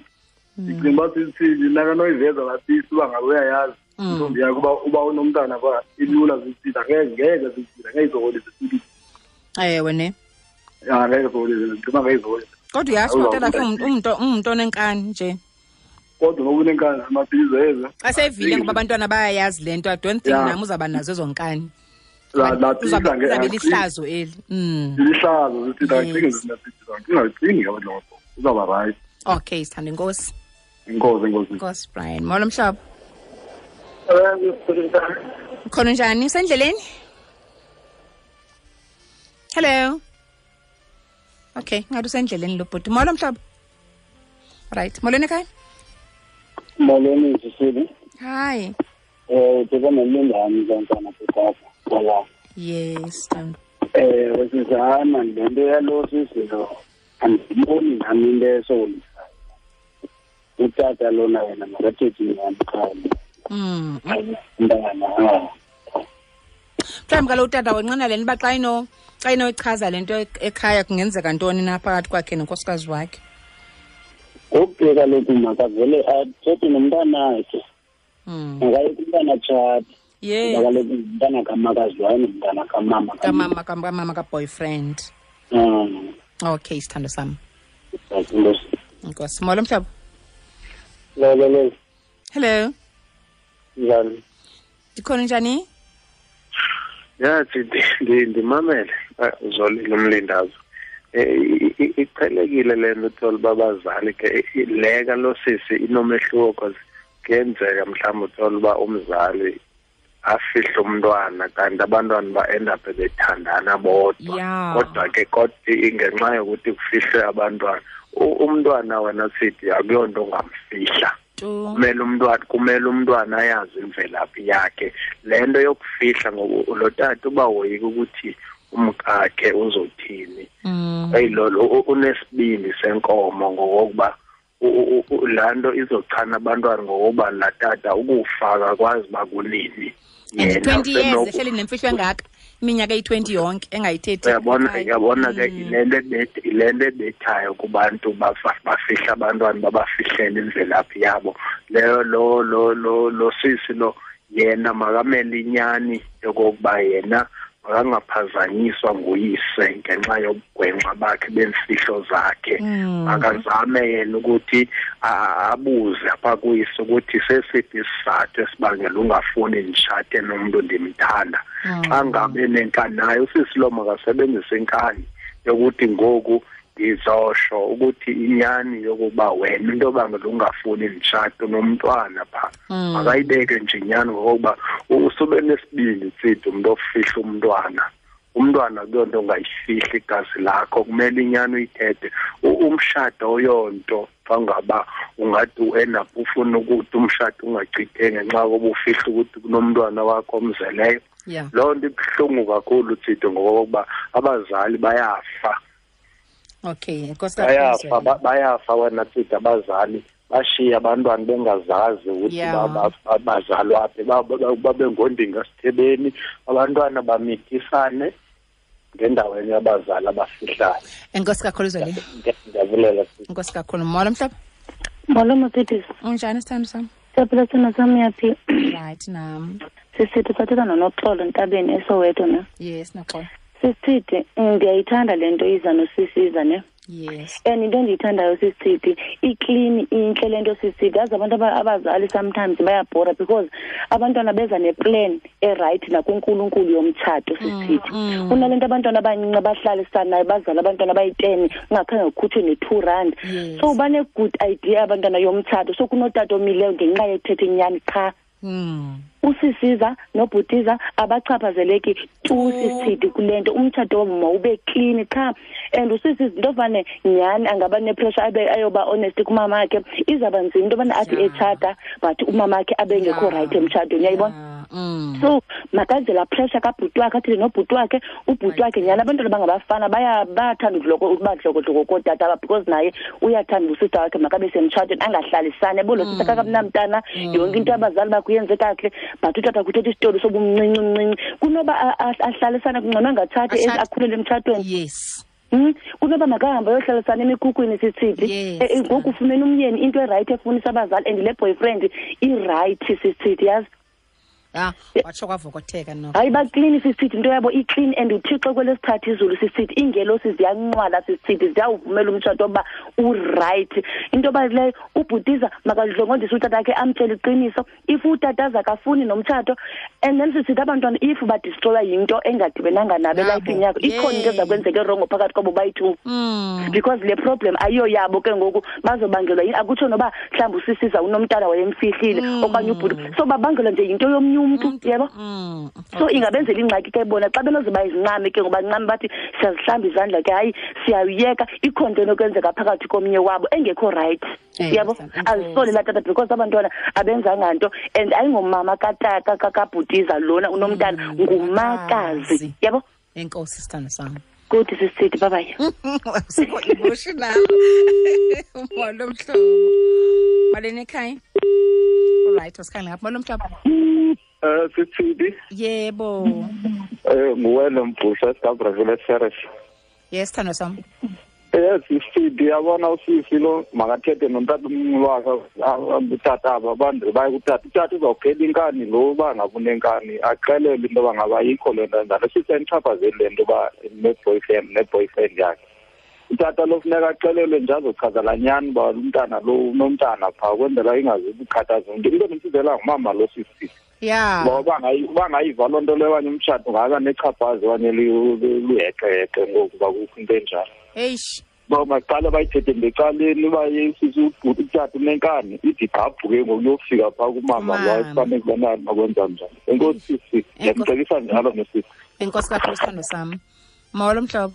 Ndicinga uba sisithini nakanoyiveza laa sisi uba ngabe uyayazi intombi yakhe uba unomntana phaa, ilula sisithi, angeke sisithi, angeke izokolise sithi. Ewe ne. Ya, angeke izokolise, ndicinga uba ngeke izokolise. Kodwa uyatsho utata wakhe ungumntu onenkani nje. Kodwa ngoba unenkani amaphizo eze. Xa seyivile ngoba abantwana bayayazi le nto, I don't think nam uzawuba nazo ezo nkani. La Uzabe lihlazo eli. Lihlazo, sithi acinge sithi, ungacingi ke loo nto. Uzawuba right. Okay, sithanda, inkosi. Inkosi, inkosi. Inkosi, Brian. Molo mhlobo. Khona njani? Usendleleni? Hello. Okay, ngathi usendleleni lo bhuti. Molo mhlobo. Right. Molweni ekhaya. Molweni sisile. Hi. Uthetha nomlingani kaNtwana Kapa. Wala. Yes, Thando. Wesizana le nto yalo sisi lo andiboni nami into esolisayo. Utata lona yena makathethe inyani qha. Umntana. Mhlawumbi kaloku utata wenqena le nto uba xa inoyichaza le nto ekhaya kungenzeka ntoni na phakathi kwakhe nonkosikazi wakhe. Ngoku ke kaloku makavele athethe nomntanakhe. Makaye kumntana atshate. Kuba kaloku ngumntana kamakazi wayo nomntana kamama. Kamama, kamama ka-boyfriend. Okay, sithando sam. Enkosi. Enkosi. Molo mhlobo. Lolo, lolo. Hello. Njani? Ndikhona, njani? Ya, ndimamele. Uzolile umlindazo. Iqhelekile le nto uthola uba abazali ke, le kalo sisi inomehluko because kuyenzeka mhlawumbi uthola uba umzali afihle umntwana kanti abantwana ba-end up bethandana bodwa. Kodwa ke kodwa ingenxa yokuthi kufihlwe abantwana, umntwana wena sithi akuyonto ongamfihla. Kumele umntwana ayazi imvelaphi yakhe. Le nto yokufihla ngoba lo tata uba woyika ukuthi umkakhe uzothini. Eyi, lo unesibindi senkomo ngokokuba laa nto izochana abantwana ngokokuba laa tata ukufa akwazi uba kunini. And Yena 20 years ehleli nemfihlo engaka, iminyaka eyi-20 yonke engayithethi. Uyabona ke yile nto ebethayo kubantu bafihla abantwana, babafihlele imvelaphi yabo. Leyo lo sisi lo yena makamele inyani yokokuba yena makangaphazanyiswa nguyise ngenxa yobugwenxa bakhe bemfihlo zakhe. Akazame yena ukuthi abuze apha kuyise ukuthi sesiphi isizathu esibangela ungafuni nditshate nomntu ndimthanda. Xa ngabe nenkani naye usisi lo makasebenzise inkani yokuthi ngoku ndizosho ukuthi inyani yokuba wena into obangela ungafuni nditshate nomntwana phaa. Makayibeke nje inyani ngokokuba usube nesibindi tsidi umntu ofihla umntwana. Umntwana akuyonto ongayifihli igazi lakho, kumele inyani uyithethe. Umshado oyonto xa ngaba ungathi u-end up ufuna ukuthi umshado ungachitheki ngenxa yokuba ufihla ukuthi kunomntwana wakho omzeleyo. Loo nto ibuhlungu kakhulu tsidi ngokokuba abazali bayafa. Okay, enkosi kakhulu, Bayafa, Zweli. bayafa wena tsidi abazali, bashiya abantwana bengazazi ukuthi bazalwa phi, babe ngondinga sithebeni, abantwana bamithisane ngendaweni yabazali abafihlayo. Enkosi kakhulu, Zweli. Ndiyabulela, sisi. Enkosi kakhulu. Molo mhlobo. Molo Mercedes. Unjani sithando sam? Siyaphila sithando sam, uyaphi? Right nam. Sisithi sathetha noNoxolo Ntabeni eSoweto ne? Yes, Noxolo. Sisithi ndiyayithanda le nto iza nosisiza ne. Yes. And into endiyithandayo sisithi iclean intle le nto sisithi. Yazi abantu abazali sometimes bayabhora because abantwana beza neplan eright nakuNkulunkulu yomtshato sisithi. Kunale nto abantwana abancinci abahlalisanayo bazala abantwana abayi-10 ungakhange kukhutshwe ne-2 rand. So bane good idea abantwana yomtshato. So kunotata omileyo ngenxa yethetha inyani qha. Usisiza nobhutiza abachaphazeleki tu sisithi kule nto umtshato wabo mawube clean qha. And usisiza into yobane nyhani angaba nepressure abe ayoba honest kumama wakhe, izawuba nzima into yobana athi etshata but umama wakhe abe ngekho right emtshatweni, uyayibona? So makaze la pressure kabhuti wakhe athile nobhuti wakhe, ubhuti wakhe nyhani abantwana bangabafana bayathanda uba dlokodloko kootata because naye uyathanda usista wakhe makabe semtshatweni angahlalisani yabo lo sista kakamnamntana yonke into abazali bakhe uyenze kakuhle but utata kuthetha isitori sobumncinci mncinci kunoba ahlalisane kungcono angatshati akhulele emtshatweni. Yes. Kunoba makahambe ayohlalisana emikhukhwini sisithi ngoku ufumene umyeni into erayithi efunisa abazali and le boyfriend irayithi sisithi yazi. Watsho kwavokotheka no. Hayi baklini sisithi into yabo iclean and uThixo kwelesithathu izulu sisithi ingelosi ziyanqwala sisithi ziyawuvumela umtshato uba uright. Into bayileyo ubhutiza makadlongondise utata wakhe amtshele iqiniso if utata akafuni nomtshato and then sisithi abantwana if badestroya yinto engadibenanga nabo elifini yakho ikhona into ezakwenzeka erongo phakathi kwabo bayi-2 because le problem ayiyo yabo ke ngoku bazobangelwa yini akutsho noba mhlawumbi usisiza unomntana wayemfihlile okanye ubhuti so babangelwa nje yinto yomnye umuntu yebo. So ingabenzela ingxaki ke bona xa benozoba izincame ke ngoba ncame bathi siyazihlamba izandla ke hayi siyayiyeka ikhona into enokwenzeka phakathi komnye wabo engekho right yabo. Azisole la tata because abantwana abenzanga nto and ayingomama katata kakabhutiza lona unomntana ngumakazi yabo. Enkosi sithando sami. Good sisithi bye bye. Sikho emotional. Molo mhlobo. Malini ekhaya? All right, wasikhangela ngapha. Molo mhlobo. Sisithi. Yebo. Nguwena Mbhusha sikaBrazil Ceres. Yes, sithando sami. Yes, sisithi yabona usisi lo makathethe nomntana wakhe utata aba abantu baye kutata. Utata uzawuphela inkani lo uba ngaba unenkani axelele into yoba ngaba ayikho le nto enjalo. Sisi ayichaphazeli le nto uba ne-boyfriend yakhe. Utata lo funeka axelelwe nje azochaza laa nyani uba umntana lo unomntana phaa ukwenzela ingazukukhathaza umntu. Into endimfizela ngumama lo sisi. Yeah. Ngoba bangayiva loo nto leyo okanye umtshato ungaba nechaphazi okanye luheqeheqe ngoku uba kukho into enjalo. Eish. Ba maqala bayithethe ngecaleni uba sisi utata unenkani ithi gqabhu ke ngoku uyofika phaa kumama lo afanele ubana makwenza njani. Enkosi sisi, ndiyamcebisa njalo nosisi. Enkosi kakhulu sithando sami. Molo mhlobo.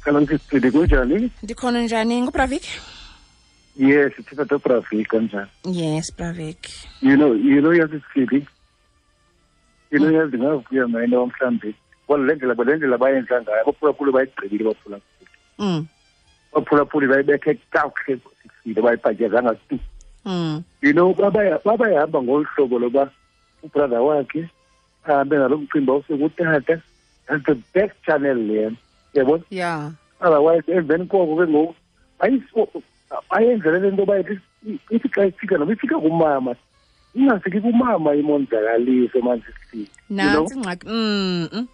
Hello sisi, kunjani? Ndikhona njani? NguBravik? Yes, it's a Bravik kanjani? Yes, Bravik. You know yazi sisi. You know yazi ngavuya mina mhlambi. Well le ndlela bayenza ngayo abaphulaphuli bayigqibile baphulaphuli. Baphulaphuli bayibethe kakuhle sisi bayibhatyazanga tu. You know babayahamba ngolu hlobo loba ubrother wakhe ahambe nalo mcimbi awusekutata. That's the best channel leyo. Yabona? Yeah. Otherwise emveni koko ke ngoku ayenzele le nto bayithi ithi xa ifika noba ifika kumama ingafiki kumama imonzakalise manje sisi. Nantsi ingxaki.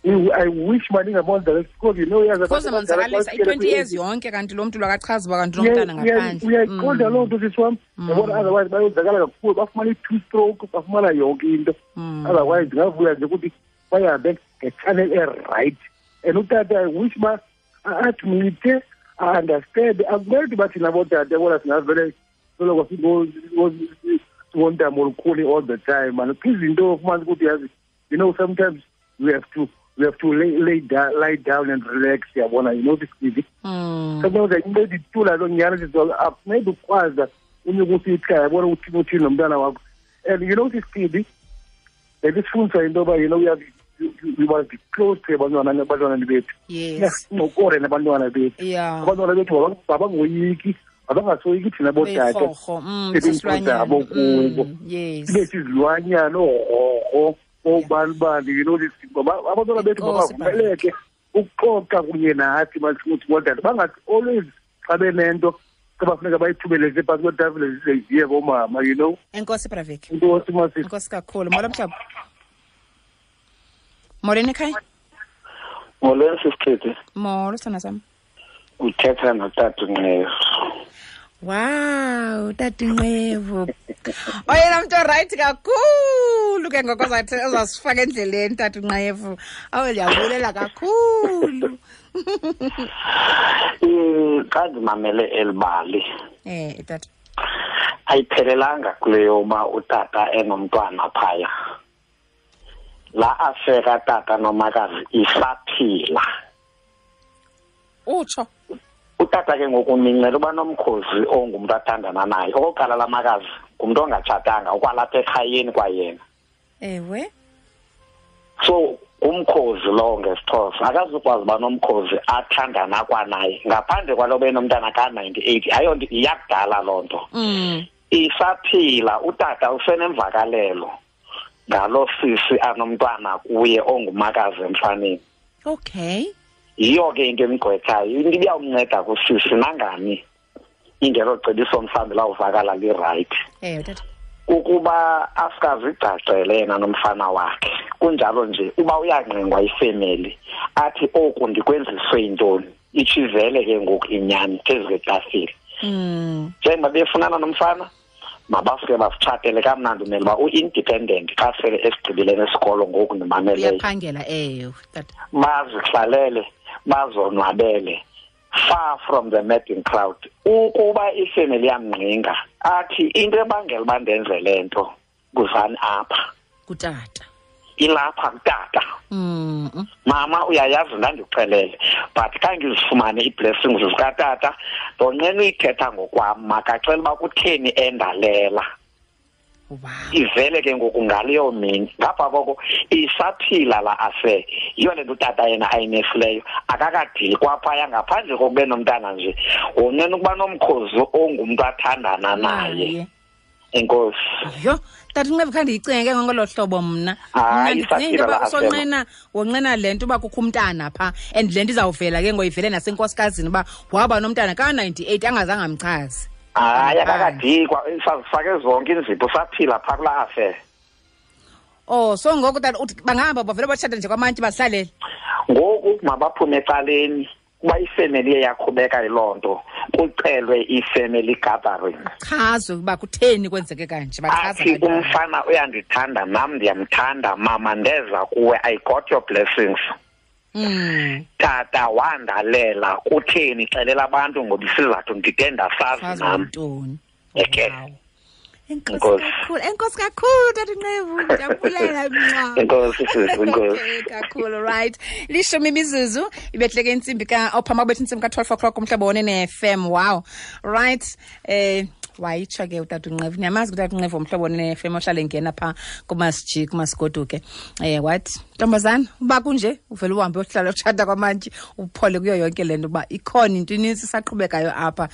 I wish mani ingamonzakalisa because you know yazi because monzakalisa i-20 years yonke kanti lo mntu lwakachaza uba kanti unomntana ngaphandle. Uyayiqonda loo nto sisi wam. Yabona otherwise bayonzakala kakhulu bafumana i-two stroke bafumana yonke into. Otherwise ndingavuya nje ukuthi bayahambe ngechannel e-right. And utata I wish ma admite understand akumele ukuthi bathi nabo tata bona singavele soloko singontamo olukhulu all the time man. Izinto ufumanisa ukuthi yazi you know sometimes we have to lay down and relax yabona you know this thing. Sometimes into ithula lo nyana akunceda ukwazi unyuka usikhaya yabona ukuthi uthini nomntana wakho. And you know this thing lesifundisa into yoba you know we must be close to abantwana bethu. Yes. Sincokole nabantwana bethu. Yeah. Abantwana bethu abangoyiki, abangasoyiki thina bootata. Sisilwanyana. Kubo. Yes. Sibe sizilwanyana oorhorho oobani you know this abantwana bethu bavumeleke ukuxoxa kunye nathi masithi bootata bangathi always xa benento xa bafuneka bayithubeleze phantsi kwetafile zize ziye koomama you know. Enkosi Bravik. Enkosi masisi. Enkosi kakhulu. Molo mhlobo. Molweni ekhaya. Molweni sisithethi. Molo sithanda sam. Uthetha notata Nqevu. Wow, tata Nqevu. Oyena mntu orayithi kakhulu ke ngoko ozasifaka endleleni tata Nqevu. Awu, ndiyabulela kakhulu. Xa ndimamele eli bali, tata, ayiphelelanga kule yoba utata enomntwana phaya. La afeka tata nomakazi isaphila. Utsho. Utata ke ngoku mincela uba nomkhozi ongumntu athandana naye. Okokuqala la makazi ngumntu ongatshatanga, ukwalapha ekhayeni kwayena. Ewe. So umkhozi lowo ngesiXhosa akazukwazi uba nomkhozi athandana kwanaye ngaphandle kwalo benomntana ka-98. Ayonto iyakudala loo nto. Isaphila utata usenemvakalelo ngalo sisi anomntwana kuye ongumakazi emfaneni. Okay. Yiyo ke into emgqwethayo, into ibiyawumnceda kusisi nangani ingelo cebiso mhlawumbi lawuvakala lirayithi. Ewe tata. Ukuba asikazigcagcele yena nomfana wakhe. Kunjalo nje uba uyangqingwa ifemeli athi oku ndikwenziswe yintoni, itshivele ke ngoku inyani phezu kwetafile. Njengoba befunana nomfana mabasuke basitshatele kamnandi, umele uba u-independent xa sele esigqibile nesikolo ngoku ndimameleyo. Uyaphangela, ewe tata. Bazihlalele bazonwabele far from the madding crowd. Ukuba ifemeli yamngqinga athi into ebangela uba ndenze le nto kuzani apha kutata, ilapha kutata. Mama uyayazi ndandikuxelele, but khange ngizifumane ii-blessings zikatata, ndonqena uyithetha ngokwam, makacela uba kutheni endalela. Wow. Ivele ke ngoku ngaleyo mini. Ngapha koko isaphila la afe. Yiyo le nto utata yena ayinefileyo, akakadili kwaphaya ngaphandle kokube nomntana nje. Wonqena ukuba nomkhozi ongumntu athandana naye. Enkosi. Yho, tata Nqevu, khange ndiyicinge ke ngolo hlobo mna. Hayi, ndicinge isaphila uba la affair. usonqena, wonqena le nto uba kukho umntana phaa, and le nto izawuvela ke ngoyivele nasenkosikazini uba waba nomntana ka-98 angazange amchaze. Hayi, akakadikwa, sazifake zonke iinzipho, saphila phaa kulaa affair. Oh, so ngoku tata uthi bangahamba bavele batshata nje kwamantyi bazihlalele? Ngoku mabaphume ecaleni, kuba ifemeli iye yaqhubeka yiloo nto, kucelwe i-family gathering. Chazwe uba kutheni kwenzeke kanje, bachaza Athi kanjani. umfana uyandithanda, nam ndiyamthanda, mama ndeza kuwe, I got your blessings. Tata wandalela, kutheni xelela abantu ngoba isizathu ndide ndasazi Sazi nam. ntoni. Eke. Wow. Enkosi Enkosi. kakhulu, enkosi kakhulu tata Nqevu, ndiyabulela mnqa. Enkosi sisi, enkosi. Okay, kakhulu, right. 10 imizuzu ibehleke intsimbi ka ophama kubetha intsimbi ka 12 o'clock umhlobo wone ne-FM. Wow. Right. Wayitsho ke utata Nqevu. Niyamazi utata Nqevu umhlobo wone ne-FM ohlale engena pha kumasiji kumasigoduke. Wathi ntombazana uba kunje uvele uhambe uyohlala utshata kwamantyi uphole kuyo yonke le nto uba ikhona into inintsi isaqhubekayo apha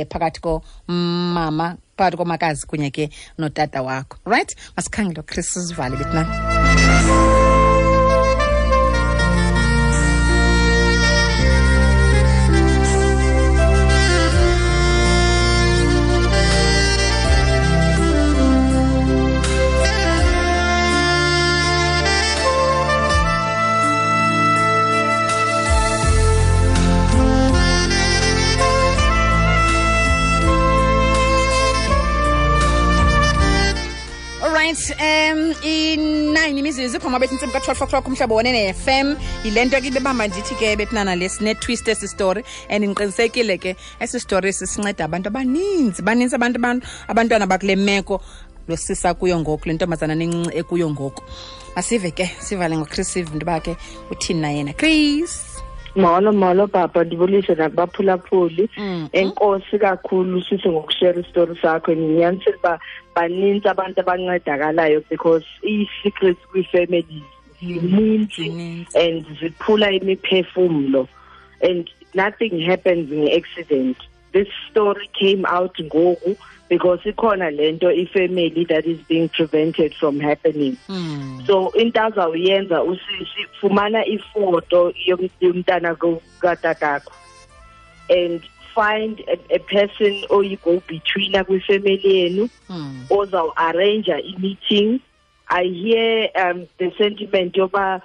phakathi komama, phakathi komakazi kunye ke notata wakho. Right? Masikhangele uChris sizivale bethina. Right, i-9 imizuzu phama bethi intsimbi ka-12 o'clock umhlobo wone ne-FM. Yile nto ke ibebamba ndithi ke bethinana le sine-twist esi story, and ndiqinisekile ke esi story sisinceda abantu abaninzi, baninzi abantu abantwana bakule meko losisa kuyo ngoku, le ntombazana nencinci ekuyo ngoku. Masive ke, sivale ngoChris sive into yoba ke uthini na yena. Chris. Molo, molo baba, ndibulise nakubaphulaphuli. Enkosi kakhulu sisi ngokushare isitori sakho. Ndinyanisile uba banintsi abantu abancedakalayo because ii-secrets kwii-families zininzi and ziphula imiphefumlo, and nothing happens nge-accident. This story came out ngoku because ikhona lento ifamily that is being prevented from happening. So into azawuyenza usisi, fumana ifoto yomntana katatakho and find a person oyi-go between kwifamily yenu, ozawu-arrange i-meeting I hear the sentiment yoba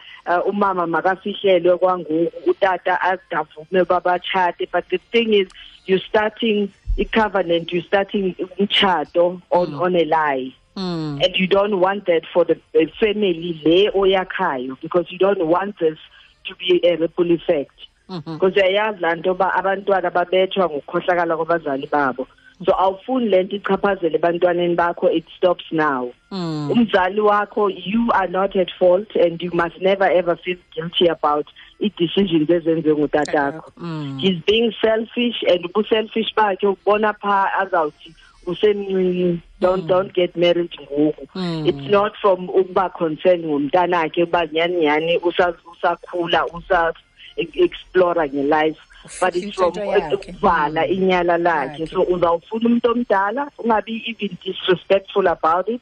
umama makafihlelwe kwangoku, utata azidavume babatshate, but the thing is, you're starting a covenant, you're starting umtshato on a lie. And you don't want that for the family le oyakhayo, because you don't want this to be a ripple effect. Because uyayazi laa nto yoba abantwana babethwa ngokukhohlakala kwabazali babo. So awufuni le nto ichaphazele ebantwaneni bakho, it stops now. Umzali wakho, you are not at fault, and you must never ever feel guilty about i-decisions ezenziwe ngutatakho. He's being selfish, and ubuselfish bakhe ubona phaa azawuthi usemncinci, don't get married ngoku. It's not from ukuba concerned ngomntanakhe uba nyhani nyhani usakhula, usa-explora nge-life, but it's from ukuvala inyala lakhe. So uzawufuna umuntu omdala, ungabi even disrespectful about it.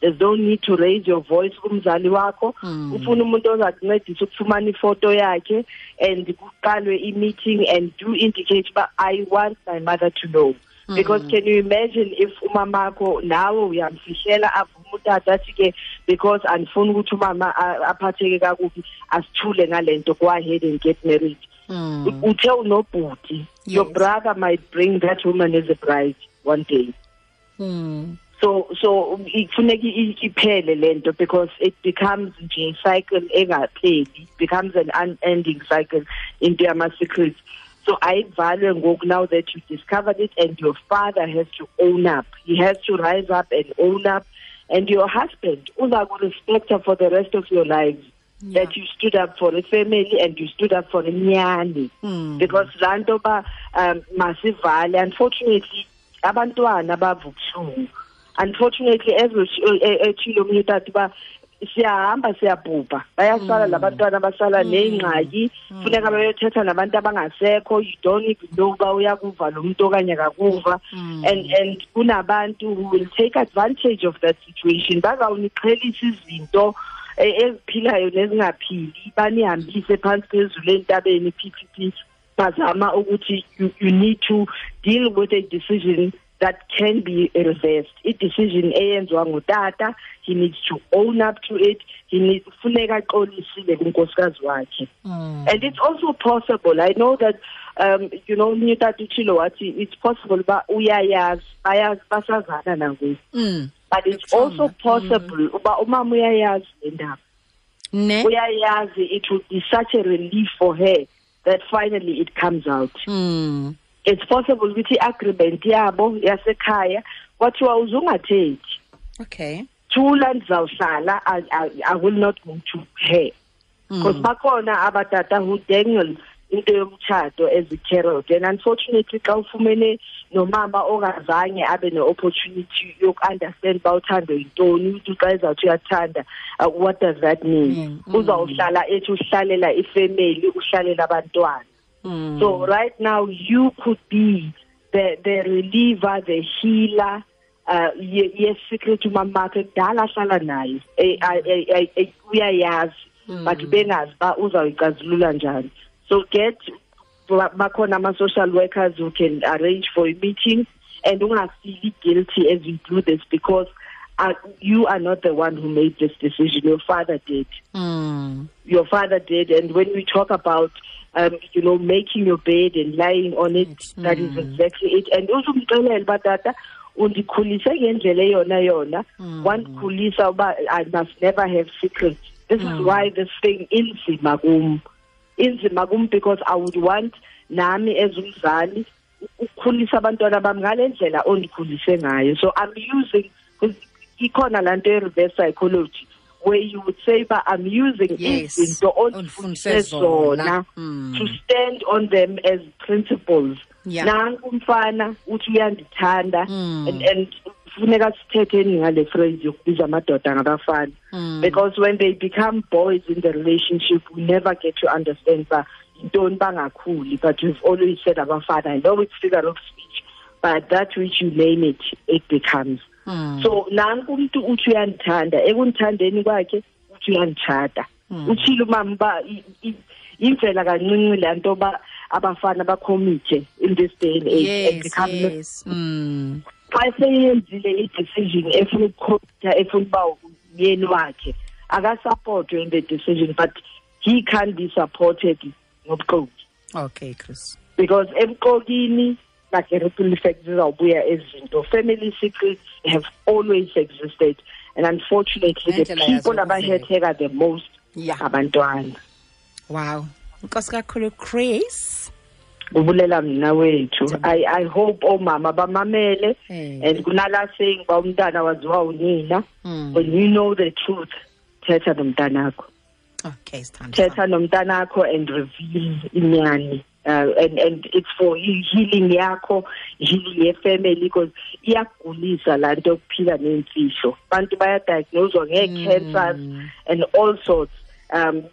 There's no need to raise your voice kumzali wakho. Ufuna umuntu ozakuncedisa ukufumana ifoto yakhe, and kuqalwe i-meeting and do indicate uba I want my mother to know. Because can you imagine if umamakho nawe uyamfihlela, avume utata athi ke because andifuni ukuthi umama aphatheke kakubi, asithule ngale nto, go ahead and get married. Uthe unobhuti, your brother might bring that woman as a bride one day. So ifuneka iphele le nto, because it becomes nje cycle engapheli, it becomes an unending cycle into yama-secrets. So I value ngoku now that you discovered it, and your father has to own up. He has to rise up and own up. And your husband, uza ku-respect her for the rest of your lives. Yeah. That you stood up for a family and you stood up for inyani. Because laa nto ba masivale, unfortunately, abantwana bava ubuhlungu. Unfortunately, as etshilo omnye utata uba siyahamba siyabhubha, bayasala labantwana, basala neengxaki, funeka bayothetha nabantu abangasekho. You don't even know uba uyakuva lo mntu okanye akakuva. And kunabantu who will take advantage of that situation, bazawuniqhelisa izinto eziphilayo nezingaphili, banihambise phantsi phezulu entabeni, PPP. Bazama ukuthi you need to deal with a decision that can be reversed. I-decision eyenziwa ngutata, he needs to own up to it. He needs funeka axolisile kunkosikazi wakhe. And it's also possible, I know that you know, omnye utata utshilo wathi it's possible uba uyayazi, bayazi, basazana nangoku. But it's also possible uba umama uyayazi le ndaba. Uyayazi, it would be such a relief for her that finally it comes out. It's possible ukuthi i-agreement yabo yasekhaya kwathiwa uzungathethi. Okay. Thula ndizawuhlala, I will not go to her. Because bakhona abatata who dangle into yomtshato as a carrot. And unfortunately, xa ufumene nomama ongazange abe ne-opportunity yoku-understand uba uthando yintoni, ukuthi xa ezawuthi uyathanda, what does that mean? Uzawuhlala ethi uhlalela ifemeli, uhlalela abantwana. So right now you could be the reliever, the healer, yes, secret umamakhe kudala ahlala naye, uyayazi, but bengazi uba uzawuyicazulula njani. So get bakhona ama-social workers who can arrange for a meeting, and ungafeel guilty as you do this, because you are not the one who made this decision. Your father did. Your father did. And when we talk about you know, making your bed and lying on it, that is exactly it. And uzumxelela uba tata undikhulise ngendlela eyona yona, wandikhulisa uba I must never have secrets. This is why this thing inzima kum. Inzima kum because I would want nami as umzali ukukhulisa abantwana bami ngale ndlela ondikhulise ngayo. So I'm using, ikhona laa nto ye-reverse psychology, where you would say, but I'm using izinto ondifundise zona to stand on them as principles. Nanku umfana uthi uyandithanda, and funeka sithetheni ngale phrase yokubiza amadoda ngabafana. Because when they become boys in the relationship, we never get to understand ba yintoni bangakhuli, but we've always said abafana. I know it's figure of speech, but that which you name it, it becomes. So nanku umuntu uthi uyandithanda, ekundithandeni kwakhe uthi uyanditshata. Utshilo umama uba imvela kancinci laa nto ba abafana bakhomithe in this day and age. And become xa seyenzile i-decision efuna ukukhomitha, efuna uba ngumyeni wakhe akasupportwe in the decision, but he can't be supported ngobuxoki. Okay, Chris. Because ebuxokini like a ripple effect zizawubuya ezinto. Family secrets have always existed, and unfortunately the people abahetheka the most abantwana. Wow. Nkosi kakhulu, Chris. Ubulela mna wethu. I hope omama bamamele, and kunala saying ba umntana waziwa unina. When you know the truth, thetha nomntanakho. Okay, sithando. Thetha nomntanakho and reveal inyani. And it's for healing yakho, healing your family, because iyagulisa laa nto yokuphila neemfihlo. Abantu bayadiagnoswa ngee-cancers and all sorts.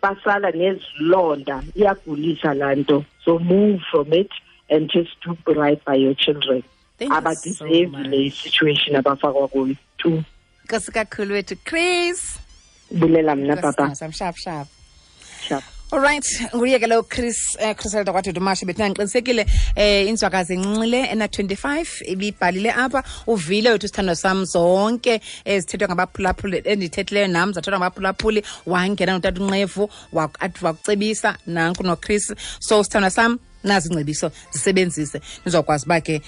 Basala nezilonda, iyagulisa laa nto. So move from it and just do right by your children. Thank you so much. Le situation abafakwa kuyo too. Nkosi kakhulu wethu, Chris. Bulela mna, papa. Sharp, sharp. Sharp. All right, nguye ke lo Chris, Chris wakwaDumashe. Bethina ngiqinisekile inzwakazi encinci ena 25 ibibhalile apha. Uvile wethu sithando sam zonke ezithethwa ngabaphulaphuli, endithethileyo nam zathethwa ngabaphulaphuli. Wangena notata uNqevu wakucebisa nanku noChris. So sithando sam, nazi ingcebiso zisebenzise, nizokwazi uba ke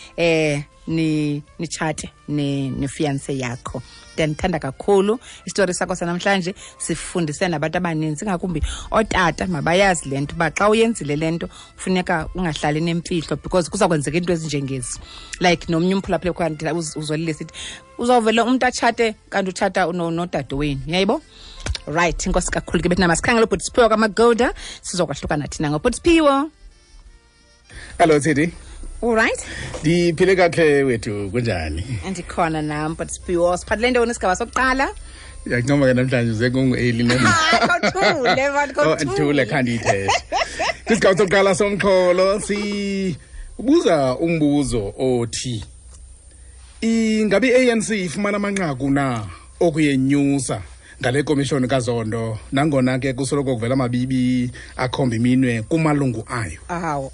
nitshate nefiance yakho. Ndiyandithanda kakhulu isitori sakho sanamhlanje, sifundise nabantu abaninzi, ngakumbi ootata mabayazi le nto uba xa uyenzile le nto funeka ungahlali nemfihlo, because kuza kwenzeka into ezinjengezi. Like nomnye umphulaphuli khona uzolile sithi uzawuvele umntu atshate kanti utshata nodade wenu, uyayibo? Right, inkosi kakhulu ke bethina. Masikhangele ubhuti Siphiwo kaMagoda, sizokwahlukana thina ngobhuti Siphiwo. Hello Teddy. All right. Ndiphile kakhe wethu, kunjani? Andikhona nam, but Siphiwo, siphathele ntoni isigaba sokuqala? Ndiyakuncoma ke namhlanje uze kungu-Eli. Kothule, man, kothule. Ndithule khandiyithethe. Kwisigaba sokuqala somxholo sibuza umbuzo othi ingabe i-ANC ifumana amanqaku na okuyenyusa ngale komishoni kaZondo, nangona ke kusoloko kuvela amabibi akhomba iminwe kumalungu ayo. Awu.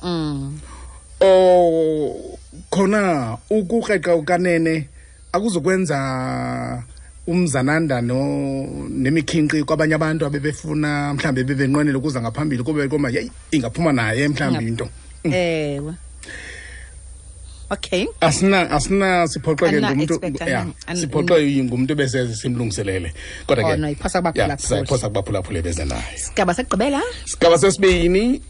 Khona ukukreqa ukanene akuzokwenza umzananda nemikhinqi kwabanye abantu abebefuna mhlambe bebenqwenela ukuza ngaphambili kube koma yeyi ingaphuma naye mhlambi into. Ewe. Okay. Asina siphoxeke ngumuntu, siphoxeke ngumuntu bese simlungiselele. Kodwa ke iphosa kubaphulaphuli. Iphosa kubaphulaphuli beze nayo. Sigaba sekugqibela? Sigaba sesibini,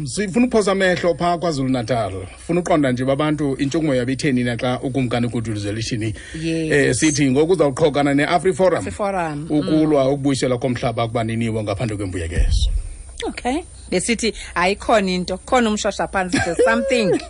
sifuna ukuphosa amehlo pha KwaZulu Natal. Funa uqonda nje babantu intshukumo yabo itheni na xa ukumkani uGuduzela sithi ngoku uzawuqhokana neAfriForum. AfriForum. Ukulwa ukubuyiselwa komhlaba kubaniniwo ngaphandle kwembuyekezo. Okay. Besithi ayikhona into, khona umshosha phansi, there's something.